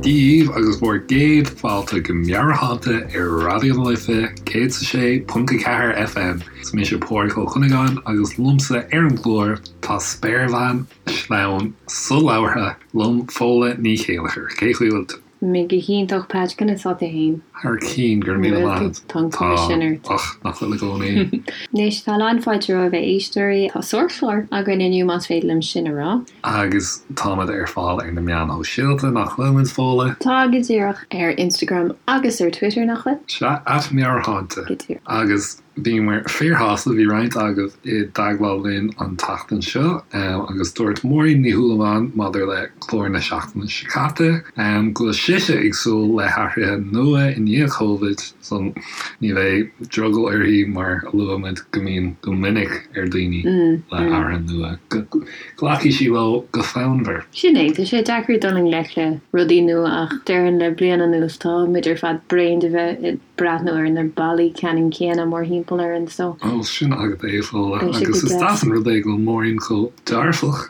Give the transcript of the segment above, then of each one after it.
daoibh agus bhur gcéad fáilte go Meabhairshláinte ar Raidió na Life 106.4 FM. Is mise Pádraig Ó Cuinneagáin agus liomsa ar an gclár tá spéirbhean shleamhain solabhartha liom Fódhla Ní Chéilleachair. Cén chaoi a bhfuil tú? Mé go hiontach Patch, conas tá tú fhéin? Thar cinn, go raibh míle maith agat. Tá an cuma sin ort. Ach nach bhfuil i gcónaí. Anois, tá lán fáilte romhaibh a éisteoirí. Tá sárchlár againn inniu más féidir liom sin a rá. Agus táimid ar fáil ar na meáin shóisialta, nach bhfuil muid, Fódhla? Tá, go díreach. Ar Instagram agus ar Twitter, nach bhfuil? Sea, at Meabhairshláinte. Go díreach. Agus Bhíomar fíorshásta, bhí roinnt agaibh i dteagmháil linn an tseachtain seo agus dúirt Máirín Ní Shúilleabháin maidir le clár na seachtaine seo caite go bhfuil sise ag súil le hathruithe nua i ndiaidh Covid so ní bheidh drogall uirthi mar a luaigh muid go mbíonn go minic ar daoine le hathruithe nua go nglacfaidh sí leo go fonnmhar. Sin é, tá sé deacair dul i ngleic le rudaí nua ach déarfainn le bliain anuas tá muid ar fad bréan de bheith i breathnú ar na ballaí ceannann céanna mórthimpeall orainn so. Ó, sin agat é, a Fhódhla. Beidh sé go Agus is deas. deas an rud é go bhfuil Máirín chomh dearfach.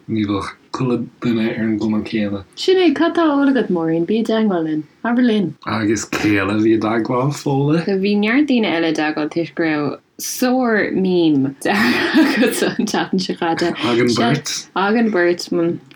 Ní bheadh chuile duine ar an gcuma céanna. Sin é, cad tá á ól agat, Máirín? Bí i dteagmháil linn. Abair linn. Agus cé eile a bhí i dteagmháil, Fódhla? Bhí neart daoine eile i dteagmháil toisc go raibh sár meme deartha agatsa an tseachtain seo caite. Againn beirt. Againn beirt,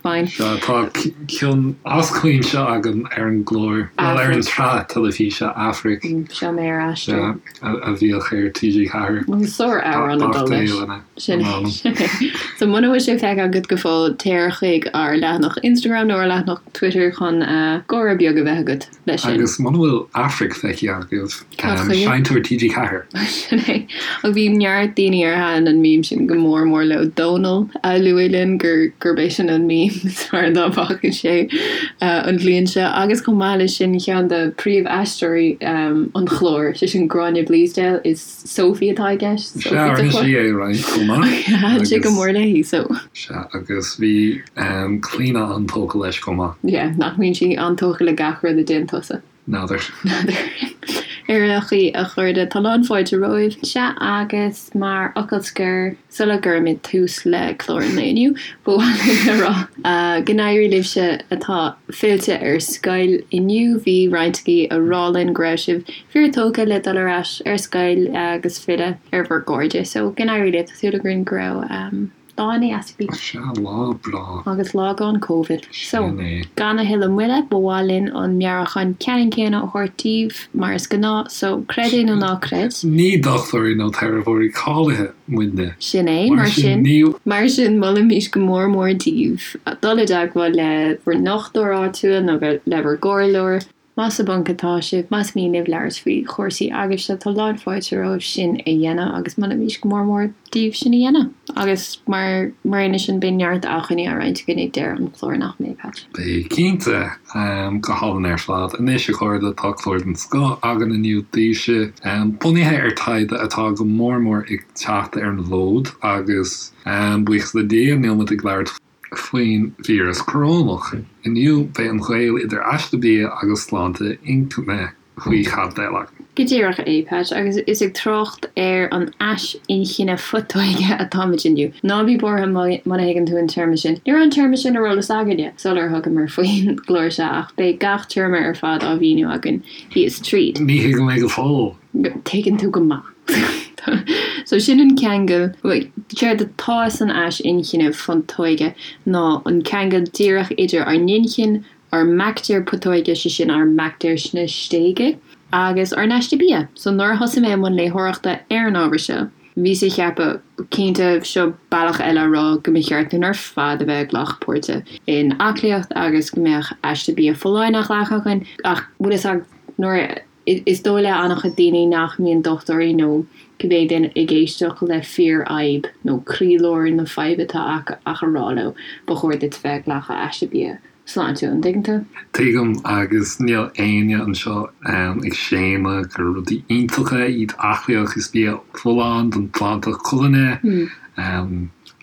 fine. Sea, tá cion as cuimse agam ar an gclár, bhuel, ar an tsraith teilifíse Aifric. Seo mé ar aistear. Sea, a bhíodh ar TG4. Sár amhrán ag dul leis. Sin é, sin é. So muna bhfuil sé feicthe agat go fóill, téir chuig ár leathanach Instagram nó ár leathanach Twitter chun gáire beag a bheith agat. leis sin. Agus muna bhfuil Aifric feicthe agaibh, Seinnteoir TG4. Sin é. Ach bhí neart daoine ar thaitin an meme sin go mór mór leo. Dónal a luaigh linn gur gurb é sin an meme is fearr dá bhfaca sé an bhliain seo. Agus chomh maith leis sin, ceann de príomh-aisteoirí an chláir, sé sin Gráinne Bleasdale, is Sophie atá i gceist. Sea, rinne sí é roinnt chomh maith. Thaitin sé go mór léi, so. Sea, agus bhí Clíona an-tógtha leis chomh maith. Yeah, nach mbíonn sí an-tógtha le gach rud a déanann tusa? N'fheadar. N'fheadar. Ar aon chaoi, a chairde, tá lán fáilte romhaibh. Sea, agus mar fhocal scoir, Sula gcuirimid tús le clár an lae inniu, ba mhaith linn a rá go n-éirí libhse atá fillte ar scoil inniu. Bhí roinnt agaibh a rá linn go raibh sibh fíor-tógtha le dul ar ais ar scoil agus filleadh ar bhur gcairde. So, go n-éirí libh. Tá súil againn go raibh lá ana-dheas agaibh. Sea, lá breá. Agus lá gan Covid. So, Sin é. gan a thuilleadh moille, ba mhaith linn an meabhrúchán ceannann céanna a thabhairt daoibh, mar is gnáth. So, creid é nó ná creid. Ní dochtúirí nó teiripeoirí cáilithe muidne. Sin é. Mar sin, mar sin, molaimís go mór mór daoibh dul i dteagmháil le bhur ndochtúir áitiúil nó le bhur gcomhairleoir. Más sa bponc atá sibh, más mian libh labhairt faoi chúrsaí agaibhse, tá lán fáilte romhaibh sin a dhéanamh agus molaimís go mór mór daoibh sin a dhéanamh. Agus mar mar aon leis sin, beidh neart acmhainní á roinnt againn ag deireadh an chláir, nach mbeidh, Patch? Beidh, cinnte. Go hálainn ar fad. Anois, a chairde, tá clár den scoth againn inniu daoibhse, bunaithe ar taighde atá go mór mór ag teacht ar an bhfód agus, buíochas le Dia, níl muid ag labhairt faoin víreas corónach. Inniu, beidh an gaol idir aiste bia agus sláinte inchinne faoi chaibidil againn. Go díreach é, Patch, agus is ag trácht ar an ais inchinne phutóige atáimid inniu. Ná bí buartha muna thuigeann tú an téarma sin. Ní raibh an téarma sin ar eolas againne sular thugamar faoin gclár seo ach beidh gach téarma ar fad á mhíniú againn thíos tríd. Ní thuigim é go fóill. Tuigeann tú go maith. So sin an ceangal, séard atá san ais inchinne phutóige ná an ceangal díreach idir ár n-inchinn, ár mbaictéir putóige, sé sin ár mbaictéir sna stéige, agus ár n-aiste bia. So nuair a thosaigh mé i mbun léitheoireachta ar an ábhar seo, bhíos ag ceapadh, cinnte, seo bealach eile a rá go mba cheart dúinn ar fad a bheith ag glacadh páirte in aclaíocht agus go mbeadh aiste bia folláin á ghlacadh againn, ach bhfuil fhios agat, nuair a. Is dóigh le an-chuid daoine nach mbíonn dochtúirí nó cibé duine ag éisteacht le fíorfhadhb nó croílár na faidhbe atá acu ach a rá leo, ba chóir duit bheith ag glacadh aiste bia sláintiúil, an dtuigeann tú? Tuigim, agus níl éinne anseo ag séanadh gur rudaí iontacha iad aclaíocht is bia folláin don tsláinte colainne,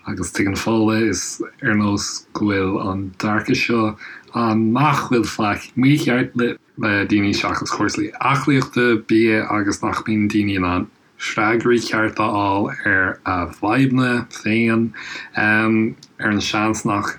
agus tuigeann Fódhla, is ar nós go bhfuil an dearcadh seo ann nach bhfuil faic mícheart le. le daoine seachas cúrsaí aclaíochta, bia agus nach mbíonn daoine in ann freagraí cearta a fháil ar a bhfadhbanna féin, ar an seans nach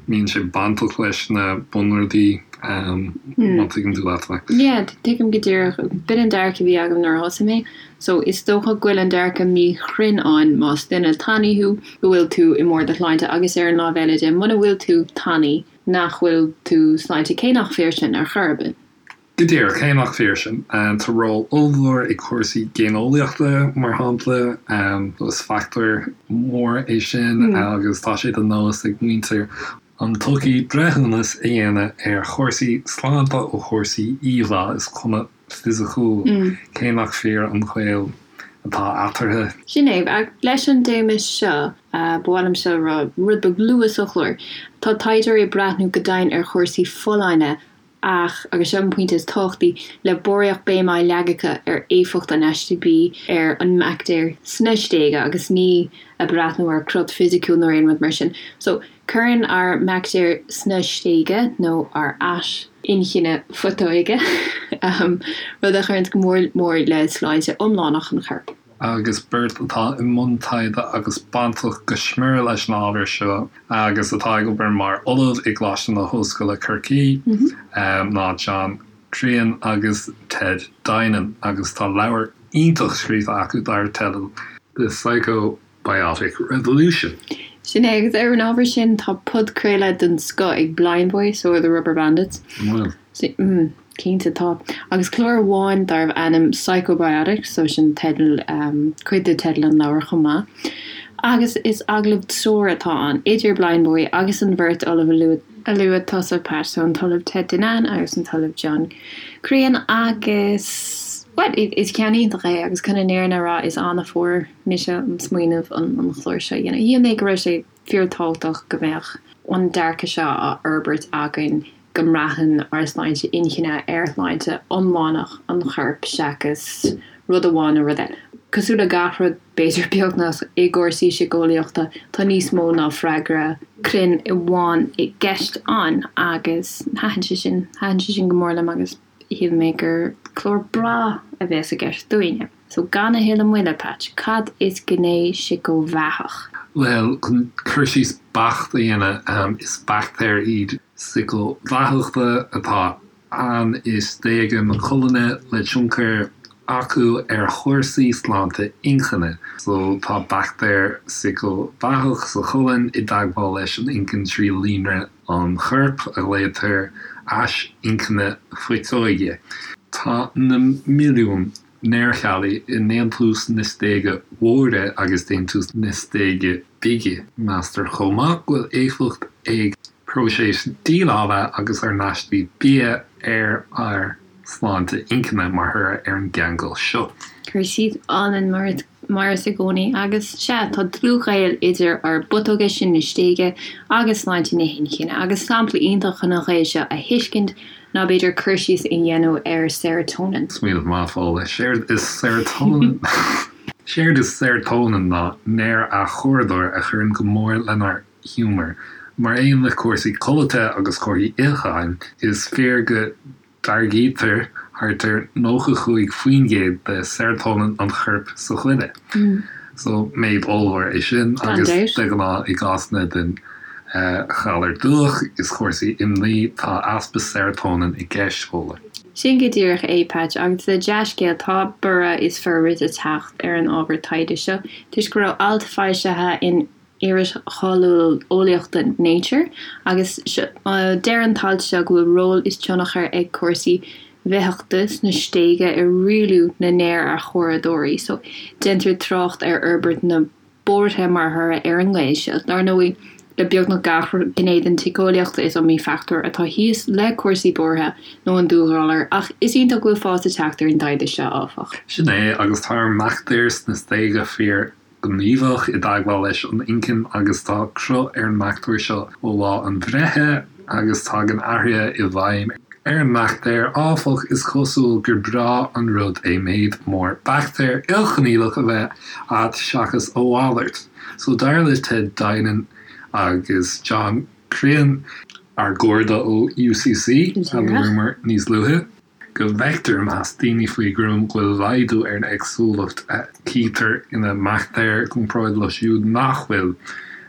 mbíonn sé bainteach leis na bunrudaí. Má tuigeann tú leat mé. Yeah, tuigim go díreach. B'in an dearcadh a bhí agam nuair a thosaigh mé. So is dócha go bhfuil an dearcadh míchruinn ann más duine tanaí thú, go bhfuil tú i mbarr do shláinte agus ar an lámh eile de, muna bhfuil tú tanaí, nach bhfuil tú sláinte, cé nach fíor sin ar chor ar bith. Go díreach, cé nach fíor sin. Tá ról ollmhór ag cúrsaí géineolaíochta, mar shampla. Is fachtóir mór é sin agus tá sé de nós ag muintir an tsochaí breithiúnas a dhéanamh ar chúrsaí sláinte ó chúrsaí íomhá is cuma fisiciúil, cé nach fíor an gaol atá eatarthu. Sin é. Ach leis an dtéama seo, ba mhaith liom seo a rá rud beag luath sa chlár, tá taighdeoirí ag breathnú go domhain ar chúrsaí folláine Ach, agus seo an pointe is tábhachtaí, le barraíocht béime á leagadh acu ar éifeacht an aiste bídh ar an mbaictéar sna stéige agus ní ag breathnú ar crot fisiciúil nó aon rud mar sin. So, cuireann ár mbaictéir sna stéige, nó ár ais inchinne phutóige, rud a chuireanns go mór mór le sláinte iomlánach an choirp. agus beirt atá i mbun taighde agus bainteach go smior leis an ábhar seo agus atá ag obair mar ollamh i gColáiste na hOllscoile Corcaigh ná John Crean agus Ted Dinan agus tá leabhar iontach scríofa acu dar teideal The Psychobiotic Revolution. Sin é, agus ar an ábhar sin tá podchraoladh den scoth ag Blindboy, so are the Rubberbandits. An bhfuil? Mm, cinnte tá. Agus clár amháin darbh ainm Psychobiotics, so sin teideal, cuid de teideal an leabhair chomh maith. Agus is agallamh triúir atá ann, idir Blindboy agus an bheirt ollamh a luaigh, a luaigh tusa, Pat, so an tOllamh Ted Dinan agus an tOllamh John Crean agus, bhuel, is ceann iontach é agus chun an fhírinne a rá, is ann a fuair mise an smaoineamh an chlár seo a dhéanamh. Shíl mé go raibh sé fíorthábhachtach go mbeadh an dearcadh seo á fhorbairt againn go mbraitheann ár sláinte inchinne ar shláinte iomlánach an choirp seachas rud amháin nó rud eile. Cosúil le gach rud, b'fhéidir, beagnach, i gcúrsaí síceolaíochta, tá níos mó ná freagra cruinn amháin i gceist ann agus thaitin sé sin, thaitin sé sin go mór liom agus shíl mé gur clár breá a bheas i gceist dúinne. So gan a thuilleadh moille, Patch, cad is gné síceobheathach? Bhuel, chun cur síos beacht a dhéanamh, is baictéir iad síceobheathacha atá ann i stéige na colainne le tionchar acu ar chúrsaí sláinte inchinne. So tá baictéir síceobheathach sa cholainn i dteagmháil leis an inchinn trí líonra an choirp a ghlaotar ais inchinne phutóige. Tá na milliúin néarcheallaí i ndéantús na stéige móire agus déantús na stéige bige. Meastar chomh maith go bhfuil éifeacht ag próiseas déileála agus ár n-aistí bia ar ár sláinte inchinne mar thoradh ar an gceangal seo. Cur síos álainn mar is i gcónaí agus sea, tá dlúthghaol idir ár bputóga sin na stéige agus sláinte na hinchinne agus sampla iontach chun an gaol seo a thuiscint ná b'fhéidir cur síos a dhéanamh ar serotonin. Smaoineamh maith, Fódhla. Séard is serotonin Séard is serotonin ná néar-athchóiritheoir a chuireann go mór lenár ngiúmar. Mar aon le cúrsaí codlata agus comharthaí itheacháin, is fíor go dtáirgítear thart ar 95% de serotonin an choirp sa ghoile. So, méid ollmhór é sin agus de ghnáth i gcásanna den ghalar dubhach is cúrsaí imní, tá easpa serotonin i gceist, Fódhla. Sin go díreach é, Patch, agus le dea-scéal, tá borradh is forbairt ag teacht ar an ábhar taighde seo toisc go raibh alt foilsithe in iris cháiliúil eolaíochta Nature agus deir an t-alt seo go bhfuil ról is tionchar ag cúrsaí bhitheachta sna stéige i rialú na néar-athchóiritheoirí so déantar trácht ar fhorbairt na buartha mar thoradh ar an ngaol seo. Dar ndóigh, le beagnach gach gné den tsíceolaíocht is iomaí fachtóir atá thíos le cúrsaí buartha nó an dúghalar, ach is iontach go bhfuil fás ag teacht ar an dtaighde seo, áfach. Sin é, agus tá ár mbaictéir sna stéige fíor gníomhach i dteagmháil leis an inchinn agus tá cruth ar an mbaictéar seo ó lá an bhreithe agus tagann athruithe i bhfeidhm ar an mbaictéar. Áfach, is cosúil gur breá an rud é méid mór baictéar ilchineálach a bheith a't seachas a mhalairt. So dar le Ted Dinan agus John Crean, ár gcairde ó UCC a luamar níos luaithe, go bhfeictear i measc daoine faoi ghruaim go bhfuil laghdú ar an éagsúlacht a chítear ina mbaictéir i gcomparáid leo siúd nach bhfuil.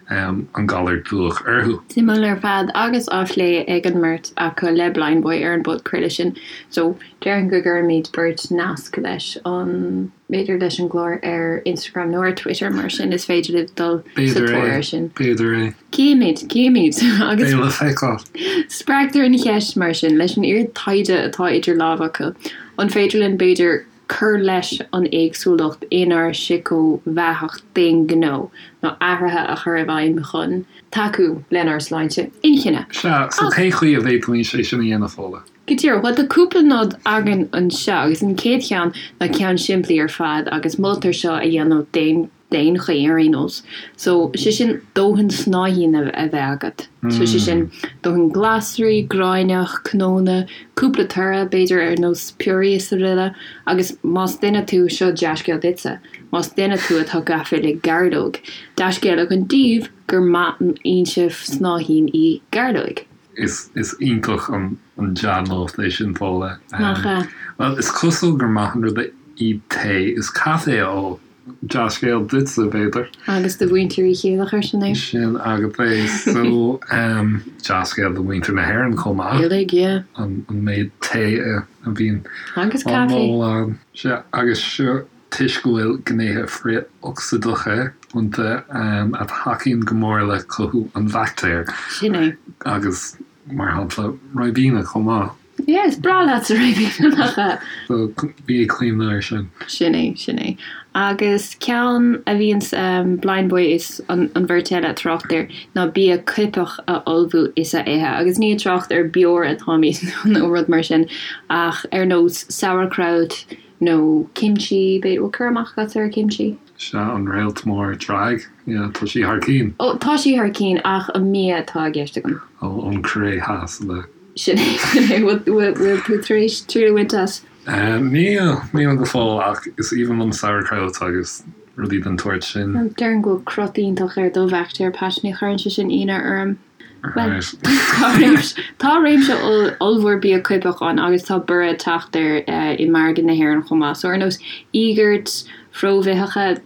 An galar dubhach orthu. Suimiúil ar fad agus á phlé ag an mbeirt acu le Blindboy ar an bpodchraoladh sin. So, déarfainn go gcuirfimid beirt nasc leis an, b'fhéidir leis an gclár ar Instagram nó ar Twitter mar sin is féidir libh dul sa tóir air sin. B'fhéidir é. Címid, címid! Agus. Beidh le feiceáil. Spreagtar an cheist mar sin, leis an oiread taighde atá idir lámha acu, an féidir linn b'fhéidir cur leis an éagsúlacht inár síceobheathacht d'aon ghnó nó athruithe a chur i bhfeidhm chun tacú lenár sláinte inchinne. Sea, so cén chaoi a bhféadfaimis é sin a dhéanamh, Fódhla? Go díreach. Bhuel, tá cúpla nod againn anseo agus an chéad cheann ná ceann simplí ar fad agus moltar seo a dhéanamh d'aon d'aon chaoi ar aon nós. So, sé sin dóthain snáithín a bheith agat. So, sé sin dóthain glasraí, gráinneach, cnónna, cúpla toradh, b'fhéidir ar nós piorraí is araile. Agus más duine tú, seo dea-scéal duitse, más duine tú atá gafa le gairleog, dea-scéal againn daoibh gur maith an fhoinse snáithín í gairleoig. Is iontach an dea-nuacht é sin, Fódhla. Nach ea? Bhuel, is cosúil gur maith an rud é tae is caife a ól. Dea-scéal duitse, b'fhéidir. Agus do mhuintir Uí Chéilleachair, sin é. Sin agat é. So, dea-scéal do mhuintir na hÉireann chomh maith. Uilig, yeah. An méid tae a bhíonn Agus á caife. ól ann. Sea, agus seo toisc go bhfuil gnéithe frith-ocsaídeacha iontu a thacaíonn go mór le cothú an bhaictéir. Sin é. Agus, mar shampla, ribena chomh maith. Yeah, is breá leatsa ribena, nach ea? So, bí ag cuimhneamh air sin. Sin é, sin é. Agus ceann a bhíonns Blindboy is an bheirt eile ag trácht air ná bia coipeach a ullmhú is a ithe. Agus ní ag trácht ar beoir atáimid nó rud mar sin ach ar nós sauerkraut nó kimchi, b'fhéidir, bhfuil cur amach agat ar kimchi? Sea, an réalt mór drag, yeah, tá sí thar cinn. Ó, tá sí thar cinn ach an mbia atá i gceist agam. Ó, ón Cóiré Theas, le. Sin é, sin é. Bhfuil, bhfuil tú tar éis triail a bhaint as? Níl, níl go fóill ach is aoibhinn liom sauerkraut agus rudaí den tsórt sin. Déarfainn go bhfuil crot iontach ar do bhaictéir, Pat, ní chuireann sé sin ionadh orm. Bhuel, tá réimse, tá réimse ollmhór bia coipeach ann agus tá borradh ag teacht air i margadh na hÉireann chomh maith. So ar nós íogairt phróibhitheacha,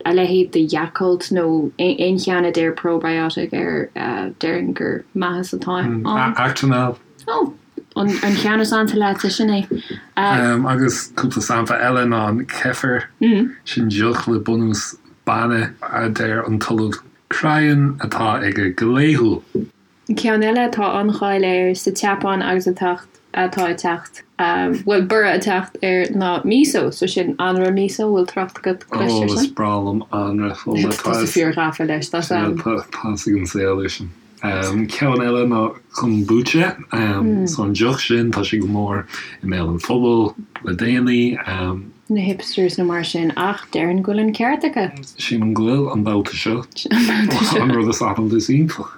a leithéid de Yakult nó aon cheann a deir probiotic air, déarfainn gur maitheas atá ann. Actimel. Ó, an ceann is ansa leatsa, sin é. Agus cúpla sampla eile ná an kefir, sin deoch le bunús bainne a deir an tOllamh Cryan atá aige go laethúil. Ceann eile atá an-cháil air sa tSeapáin agus atá atá ag teacht, bhuel, borradh ag teacht air ná miso, so sin anraith miso, bhfuil trácht agat cloiste air sin? Ó, is breá liom anraith Fódhla. Tá tú fíor-ghafa leis, tá Sam. Tá fhios ag an saol é sin. Ceann eile ná kombucha, so an deoch sin, tá sé go mór i mbéal an phobail le déanaí. na hipsters nó mar sin ach déarfainn go bhfuil an ceart acu. Sílim go bhfuil, an babhta seo. An babhta seo. An rud is ainm is iontach.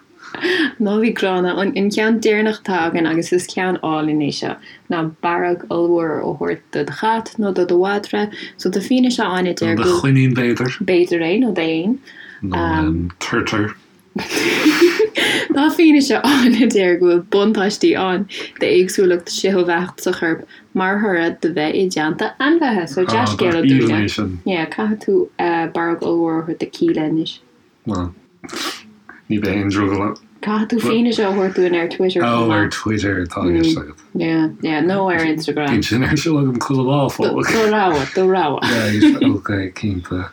Ná bí gránna. An ceann deireanach atá againn agus is ceann álainn é seo ná barróg ollmhór a thabhairt do do chat nó do do mhadra. So tá fianaise ann a deir go. Nó do choinín b'fhéidir. B'fhéidir é nó d'éan. Nó turtar. Tá fianaise ann a deir go bhfuil buntáistí ann d'éagsúlacht síceobheathach sa chorp mar thoradh de bheith i dteannta ainmhithe. So dea-scéala dúinne. Yeah, caithfidh tú barróg ollmhór a thabhairt do Kíla anois. Bhuel, ní bheidh aon drogall orm. Caithfidh tú fianaise a thabhairt dúinn ar Twitter chomh maith. Oh, ar Twitter atá i gceist agat. Yeah, yeah, nó ar Instagram. Bíonn sin ar siúl agam chuile lá, fág. Do rogha, do rogha. Right, ok, cinnte.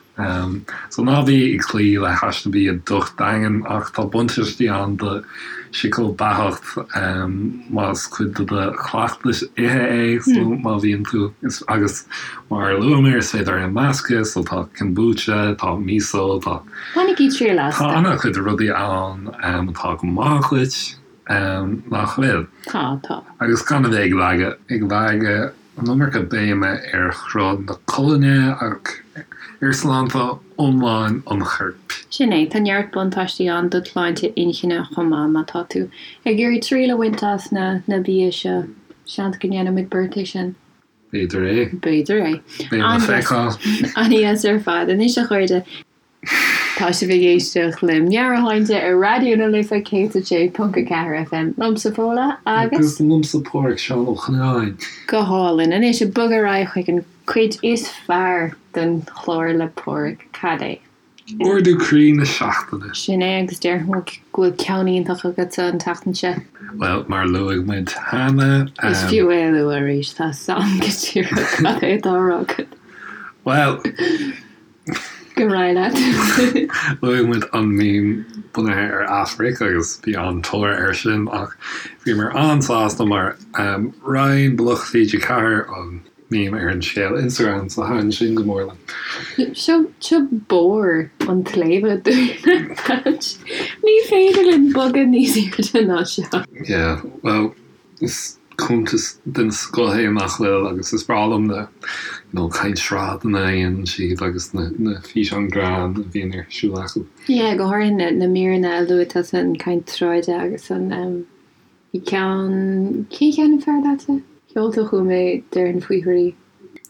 So ná bí ag cloí le haiste bia docht daingean ach tá buntáistí ann do shíceobheathacht más cuid de do chleachtas ithe é so má bhíonn tú agus mar a luamar is féidir é a mheascadh so tá kombucha, tá miso, tá Bainigí triail as. Tá an-chuid rudaí ann atá go maith dhuit nach bhfuil? Tá, tá. Agus gan a bheith ag leagadh ag leagadh an iomarca béime ar chruth na colainne ach ar shláinte iomlán an choirp. Sin é, tá neart buntáistí ann do shláinte inchinne chomh maith má tá tú ag iarraidh triail a bhaint as na na bia seo. Seans go ndéanfaimid beirt é sin. B'fhéidir é. B'fhéidir é. Beidh le feiceáil. An-deas ar fad. Anois a chairde. Tá sibh ag éisteacht le Meabhairshláinte ar Raidió na Life 106.4 FM. Liomsa Fódhla agus. Agus liomsa Páraic Seán Ó Cnáin. Go hálainn. Anois ag bogadh ar aghaidh chuig an cuid is fearr den chlár le Páraic. Cad é? Ardú croí na seachtaine. Sin é agus déarfainn go bhfuil ceann iontach agatsa an tseachtain seo. Bhuel, mar a luaigh muid cheana. Is fiú é a lua arís, tá 'fhios a'm go díreach cad é atá á rá agat. Bhuel. Go raibh leat. Luaigh muid an meme bunaithe ar Aifric agus bhí an-tóir air sin ach bhíomar an-sásta mar roinn Bloc TG4 an meme ar an scéal Instagram so thaitin sin go mór liom. Seo seo barr an tsléibhe dúinn, Patch. Ní féidir linn bogadh níos airde ná seo. Yeah, well, is cuntas den scoth é nach bhfuil agus is breá liom na you know caint sráideanna a dhéanann siad agus na na físeáin greann a bhíonn ar siúl acu. Yeah, go háirithe na na míreanna a luaigh tusa an caint sráide agus an um Bhí ceann, cén cheann ab fearr leatsa? Sheol tú chugam é, déarfainn faoi thrí.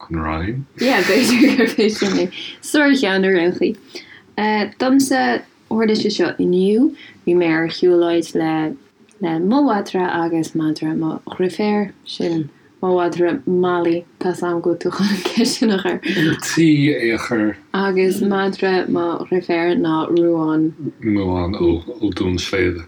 An Rinn? Yeah, b'fhéidir gurb é sin é. Sárcheann ar aon chaoi. Domsa, tharla sé seo inniu, bhí mé ar shiúlóid le le mo mhadra agus madra mo dhriféar, sin mo mhadra Molly, tá 's a'm go bhfuil tú chun an ceist sin a chur. Ar tí é a chur. Agus madra mo dhriféar ná Ruán. Ruán ó ó Dún Sléibhe.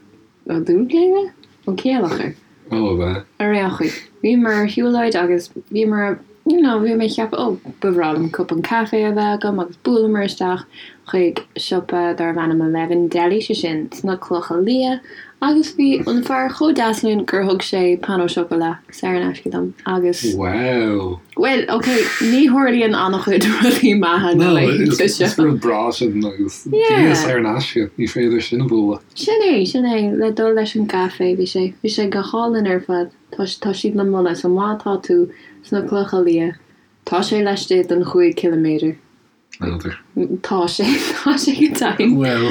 Ó Dún Sléibhe? Ó Céileachair. Ó, ab ea? Ar aon chaoi, bhíomar ar shiúlóid agus bhíomar, you know, bhí mé ag ceapadh, oh, ba bhreá liom cupán caife a bheith agam agus bhuaileamar isteach chuig siopa darbh ainm Eleven Deli, sé sin sna Clocha Liath, agus bhí an fear chomh deas linn gur thug sé pain au chocolat saor in aisce dom agus. Wow! Bhuel, ok, ní tharlaíonn an-chuid rudaí maithe na laethanta seo. Is rud breá sin agus bia saor in aisce, ní féidir sin a bhualadh. Sin é, sin é, le dul leis an gcaife, bhí sé, bhí sé go hálainn ar fad. Tá, tá siad le moladh, so má tá tú sna Clocha Liath, tá sé laistigh den chúig ciliméadar. N'fheadar. Tá sé, tá sé go deimhin. Bhuel,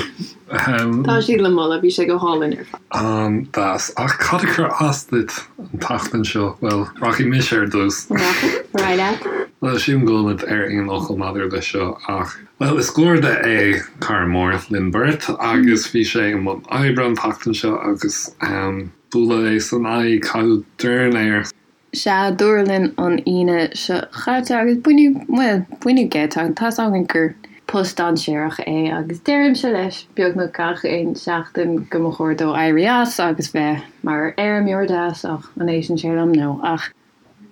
ahem. Tá siad le moladh, bhí sé go hálainn ar fad. An-deas. Ach cad a chuir as duit an tseachtain seo? Bhuel, rachaidh mise ar dtús. Rachaidh, ar aghaidh leat. Bhuel, sílim go bhfuil muid ar aon fhocal maidir leis seo ach, bhuel, is garda é cara mór linn beirt agus bhí sé i mbun oibre an tseachtain seo agus, ahem, buaileadh é san aghaidh, caitheadh dorn air. Sea, dúradh linn an Aoine seo chaite agus baineadh, bhuel, baineadh geit as, tá's againn gur post dainséarach é agus deirimse leis beagnach gach aon seachtain go mba chóir dó éirí as agus bheith mar fheirmeoir deas ach an éisteann sé liom? No. Ach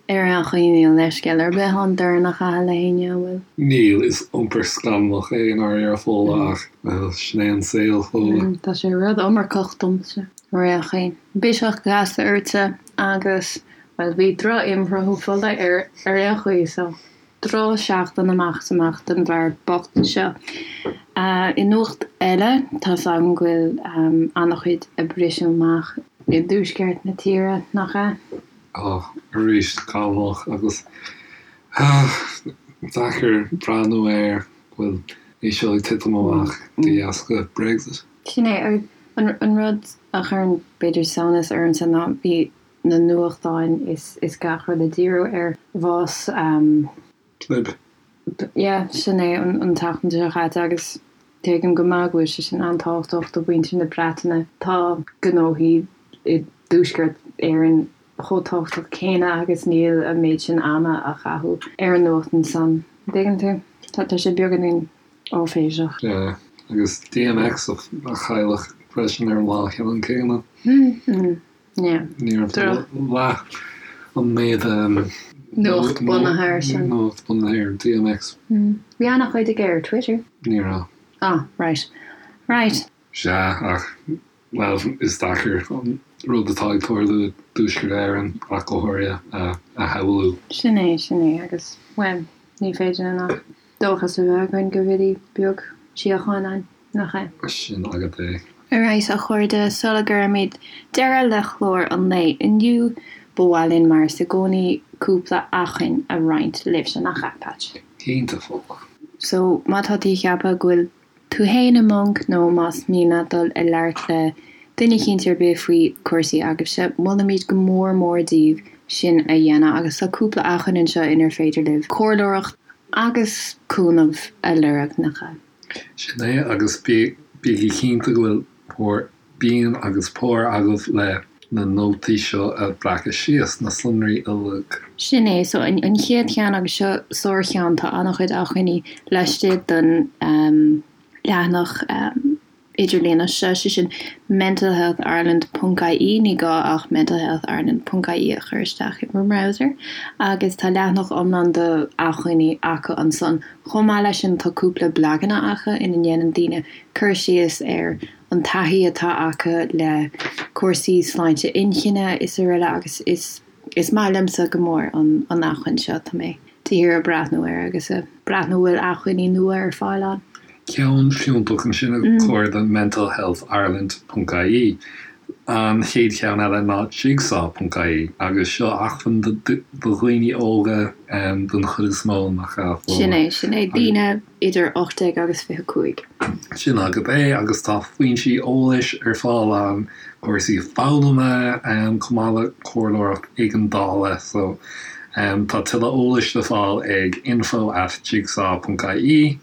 ar aon chaoi níl leithscéal ar bith ann dorn a chaitheamh le héinne, an bhfuil? Níl, is iompar scannalach é i ndáiríre Fódhla ach, bhuel, sin é an saol, Fódhla. Tá sé rud iomarcach domsa. Ar aon chaoi, biseach gasta ortsa agus, bhuel, bhí droch-imshruthú fola air ar aon chaoi, so drochsheachtain amach is amach don bhfear bocht seo. I nuacht eile, tá's agam go bhfuil an-chuid ag briseadh amach i dtuaisceart na tíre, nach ea? Á, arís, scannalach agus deacair breathnú air go bhfuil é seo ag titim amach de dheasca Brexit. Sin é, agus an rud a chuireann b'fhéidir samhnas ormsa ná bhí na nuachtáin is is gach rud ag díriú ar bhás Tlaib. Yeah, sin é an tseachtain seo chaite agus tuigim go maith go bhfuil sé sin an-tábhachtach do mhuintir na Breataine. Tá gnóthaí i dTuaisceart Éireann chomh tábhachtach céanna agus níl an méid sin ama á chaitheamh ar an nuacht ansan. An dtuigeann tú? Tá sé beagáinín. Áiféiseach. Yeah, agus DMX a cailleadh freisin ar an lá ceannann céanna. Yeah. Ní raibh leath an méid Nuacht bunaithe air sin. Nuacht bunaithe ar DMX. Bhí an-chuid aige ar Twitter. Ní raibh. Ah, right. Right. Sea, ach, bhuel, is deacair an rud atá ag tarlú i dTuaisceart Éireann, ach go háirithe, a shamhlú. Sin é, sin é, agus, bhuel, ní féidir linn ach dóchas a bheith againn go bhfillfidh beag síocháin ann, nach ea? Sin agat é. Alright, a chairde, sula gcuirimid deireadh le clár an lae inniu, ba mhaith linn, mar is i gcónaí, cúpla acmhainn a roinnt libhse, nach ea, Patch? Cinnte, Fódhla. So, má tá tú ag ceapadh go bhfuil tú fhéin i mponc nó más mian leat dul ag labhairt le duine eicínt ar bith faoi chúrsaí agaibhse, molaimid go mór mór daoibh sin a dhéanamh agus tá cúpla acmhainn anseo inar féidir libh comhairleoireacht agus cúnamh a lorg, nach ea? Sin é, agus bígí cinnte go bhfuil bhur bpinn agus pár agaibh le na nótaí seo a bhreacadh síos, na sonraí uilig. Sin é, so an chéad cheann, agus seo sár-cheann, tá an-chuid acmhainní laistigh den. leathanach idirlíon seo, sé sin mentalhealthireland ponc ie, ní gá ach mentalhealthireland ponc ie a chur isteach i bhur mbrowser agus tá leathanach iomlán de acmhainní acu ansan. Chomh maith leis sin tá cúpla blaganna acu ina ndéanann daoine cur síos ar an taithí atá acu le cúrsaí sláinte inchinne is araile agus is Is maith liomsa go mór an acmhainn seo, tá mé de shíor ag breathnú air agus ag breathnú bhfuil acmhainní nua ar fáil ann. Ceann fiúntach ansin a chairde mentalhealthireland ponc ie. An chéad cheann eile ná jigsaw ponc ie agus seo acmhainn do dhaoine óga don chuid is mó, nach ea, Fódhla? Sin é, sin é, daoine idir 18 agus 25. Sin agat é agus tá foinsí eolais ar fáil ann, cúrsaí foghlama chomh maith le comhairleoireacht éigeandála. So tá tuilleadh eolais le fáil ag info at jigsaw ponc ie.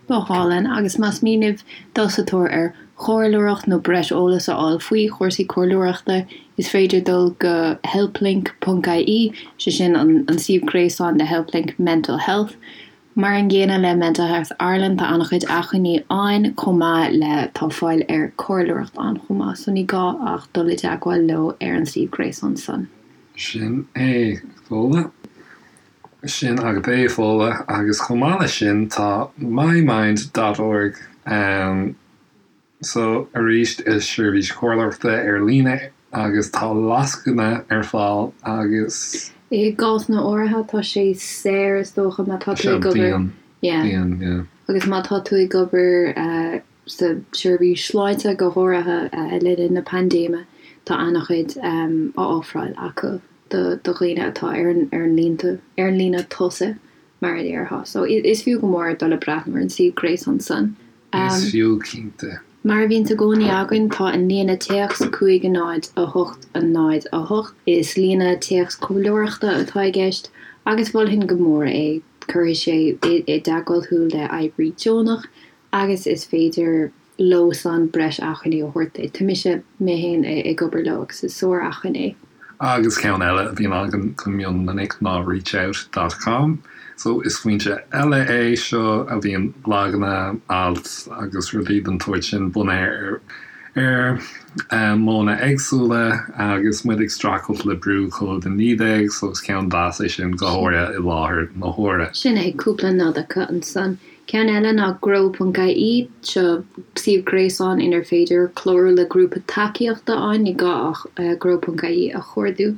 Go hálainn, agus más mian libh dul sa tóir ar chomhairleoireacht nó breis eolais a fháil faoi chúrsaí comhairleoireachta, is féidir dul go helplink ponc ie, sé sin an suíomh gréasáin le Helplink Mental Health. Mar an gcéanna le Mental Health Ireland, tá an-chuid acmhainní ann chomh maith le tá fáil ar comhairleoireacht ann chomh maith, so ní gá ach dul i dteagmháil leo ar an suíomh gréasáin san. Sin é, Fódhla. Sin agat é, Fódhla. Agus chomh maith leis sin tá mymind dot org ann. So, arís, is seirbhís chomhairleoireachta ar líne agus tá lascaine ar fáil agus. I gcásanna áirithe tá sé saor is dócha má tá tú ag obair. Bíonn, bíonn, yeah. Agus má tá tú ag obair sa tseirbhís sláinte go háirithe le linn na paindéime tá an-chuid á ofráil acu do dhaoine atá ar an ar an líne tosaigh mar a déarfá. So is fiú go mór dul ag breathnú ar an suíomh gréasáin san. Is fiú, cinnte. Mar a bhíonns i gcónaí againn, tá an líne téacs 5 0 8 0 8. Is líne téacs comhairleoireachta atá i gceist agus mholfainn go mór é. Cuirfidh sé i dteagmháil thú le oibrí deonach agus is féidir leo san breis acmhainní a thabhairt duit. Tá mise, mé féin, ag obair leo agus is sár-acmhainn é. Agus ceann eile a bhíonn againn go mion minic ná reachout dot com. So is foinse eile é seo a bhíonn blaganna, ailt agus rudaí den tsórt sin bunaithe ar ar modhanna éagsúla agus muid ag streachailt le brú Covid-19 so is ceann deas é sin go háirithe i láthair na huaire. Sin é, cúpla nod acu ansan. Ceann eile ná grow.ie, seo suíomh gréasáin inar féidir clárú le grúpa tacaíochta ann, ní gá ach grow.ie a chuardú,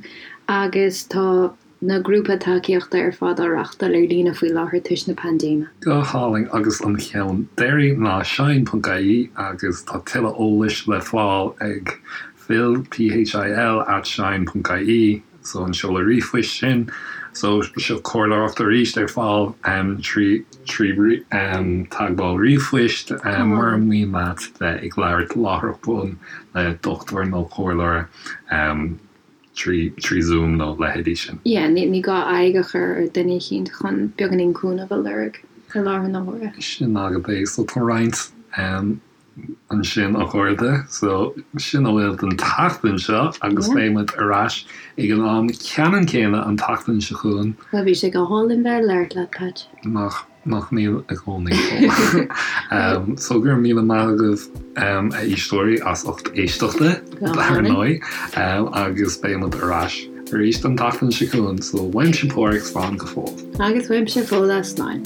agus tá na grúpa tacaíochta ar fad á reáchtáil ar líne faoi láthair toisc na paindéime. Go hálainn agus an ceann deiridh ná shine.ie agus tá tuilleadh eolais le fáil ag phil, P-H-I-L, at shine.ie so an seoladh ríomhphoist sin. So seo comhairleoireacht arís ar fáil trí trí teagmháil ríomhphoist mura mian leat bheith ag labhairt láithreach bonn le dochtúir nó comhairleoir. trí trí Zoom nó leithéidí sin. Yeah, ní ní gá aghaidh a chur ar duine eicínt chun beagáinín cúnamh a lorg i láthair na huaire. Sin agat é. So tá roinnt ansin a chairde. So sin a bhfuil don tseachtain seo agus beidh muid ar ais ag an am ceannann céanna an tseachtain seo chugainn. Bhuel bhí sé go hálainn bheith ag labhairt leat, Patch. Nach Nach mbíonn i gcónaí. So go raibh míle maith agaibh a éisteoirí as ucht éisteachta dar ndóigh agus beidh muid ar ais arís an tseachtain seo chugainn. So uaimse Páraic slán go fóill. Agus uaimse Fódhla slán.